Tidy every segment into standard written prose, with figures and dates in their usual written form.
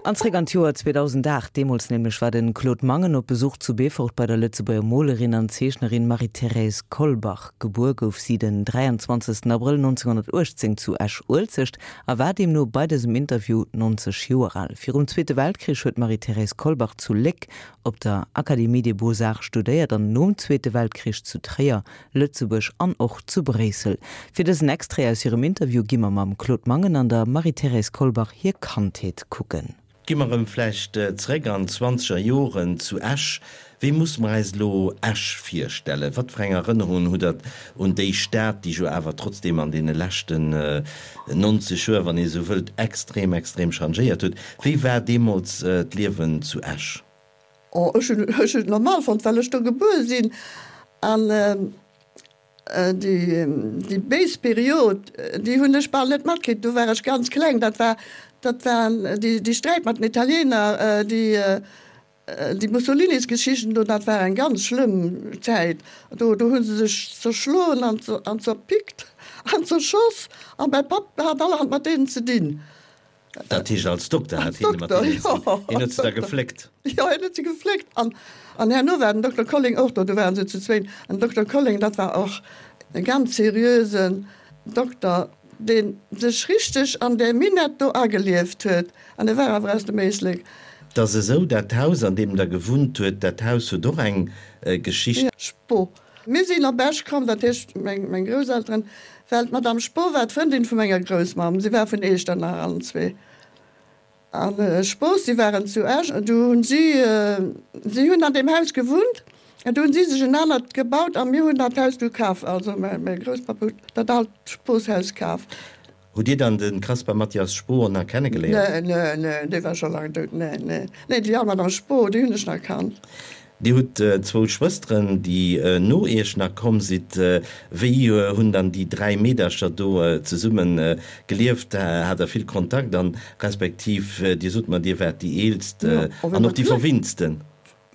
An zréck an d'Joer 2008. Deemools nämlech war de Claude Mangen op Besuch zu Beefort bei der Lëtzebuerger Molerin an Zeechnerin Marie-Thérèse Kolbach. Gebuer gouf si den 23 Abrëll 1918 zu Esch-Uelzecht a war deemno bei dësem Interview 90 Joer al. Virum Zweete Weltkrich huet d'Marie-Thérèse Kolbach zu Léck op der Académie des Beaux-Arts studéiert an nom Zweete Weltkrich zu Tréier, Lëtzebuerg an och zu Bréissel. Fir dësen Extrait aus hirem Interview gi mer mam Claude Mangen an der Marie-Thérèse Kolbach hir Kandheet kucken. Gi mer erëm vläicht zeréck an d'zwanzeger Joren zu Esch. Wéi musse mer eis elo Esch virstellen? Wat fir eng Erënnerungen hutt Der un déi Stad, déi jo awer trotzdeem an deene leschten 90 Joer, wann ee esou wëllt, extrem, extrem changéiert huet? Wéi war deemools d'Liewen zu Esch? Oh, ech hunn ech hunn et normal fonnt, well ech do gebuer sinn. An déi déi béis Period, déi hunn ech bal net matkritt, do war ech ganz kleng. Dat war dat war déi déi Sträit mat den Italiener, déi déi Mussolinisgeschichten do, dat war eng ganz schlëmm Zäit. Do do hu se sech zerschloen an an zerpickt an zerschoss. A mäi Papp hat allerhand mat deenen ze dinn. Dat heescht als Dokter hat hien mat deenen ze dinn. Hien huet se da gefléckt. Jo, hien huet se gefléckt. An, an herno war den Dokter Colling och do, do waren se zu zwéin. An den Dokter Colling, dat war och e ganz seriösen Dokter, dee sech richteg an där Minett do agelieft huet. An e war awer aus dem Éislek. 't ass esou, dat Haus, an deem Der gewunnt huet, dat Haus huet och eng Geschicht. Spo. Mir sinn op Esch komm, dat heescht meng Grousselteren, well d'Madame Spo war d'Frëndin vu menger Groussmamm. Si war vun Eechternach allen zwee. A Spos, si waren zu Esch an du hunn si, si hunn an deem Haus gewunnt an du hunn si sech en anert gebaut a mir hunn dat Haus du kaf. Also mäi Grousspapp huet dat alt Sposhaus kaf. Hutt Dir dann de Caspar Mathias Spohr nach kennegeléiert? Nee, nee, nee, dee war scho laang dout. Nee, nee, nee, déi al Madame Spohr, déi hunn ech nach kannt. Dir hutt zwou Schwësteren, déi no Iech nach komm sidd. Wéi hunn dann déi 3 Meedercher do zesumme gelieft? Hat der vill Kontakt an respektiv Dir sot mer, Dir waart déi eelst an och déi verwinntsten?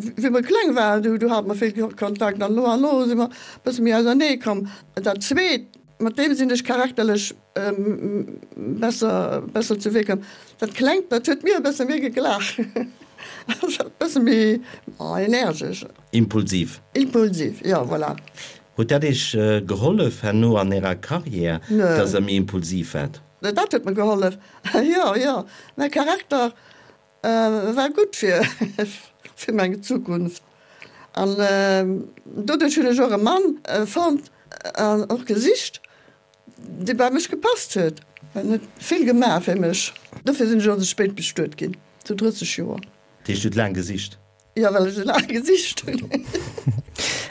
Wéi mer kleng waren, du hate mer vill Kontakt an no an no si mer e bësse méi ausernee komm. Dat zweet, mat deem sinn ech charakterlech besser, besser zu Wee komm. Dat klengt, dat huet mir e bësse méi geglaach, ass e bësse méi energesch. Impulsiv. Impulsiv, jo, voilà. Huet dat Iech gehollef herno an Ärer Karriär, dass Der méi impulsiv waart? Dat huet mer gehollef, jo, jo. Mäi Charakter War gutt fir fir meng Zukunft an doduerch hunn ech och e Mann fonnt an och gesicht, dee bei mech gepasst huet. En huet vill gemaach fir mech. Dofir sinn ech och esou spéit bestuet ginn, zu 30 Joer. Dat heescht, du hutt laang gesicht? Jo, well ech esou laang gesicht hunn.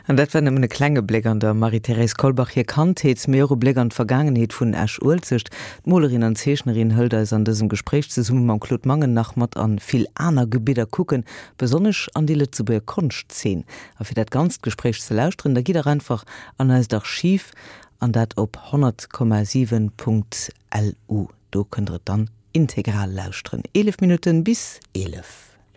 An dat war nëmmen e klenge Bléck an der Marie-Thérèse Kolbach hir Kandheet, mee och e Bléck an d'Vergaangenheet vun Esch-Uelzecht. D'Molerin an Zeechnerin hëlt eis an dësem Gespréich zesumme mam Claude Mangen nach mat an vill aner Gebidder kucken, besonnesch an déi Lëtzebuerger Konschtzeen. A fir dat ganzt Gespréich ze lauschteren, da gitt dach einfach an eist Archiv, an dat op 100,7.lu. Do kënnt der et dann integral lauschteren. 11 Minutten bis 11.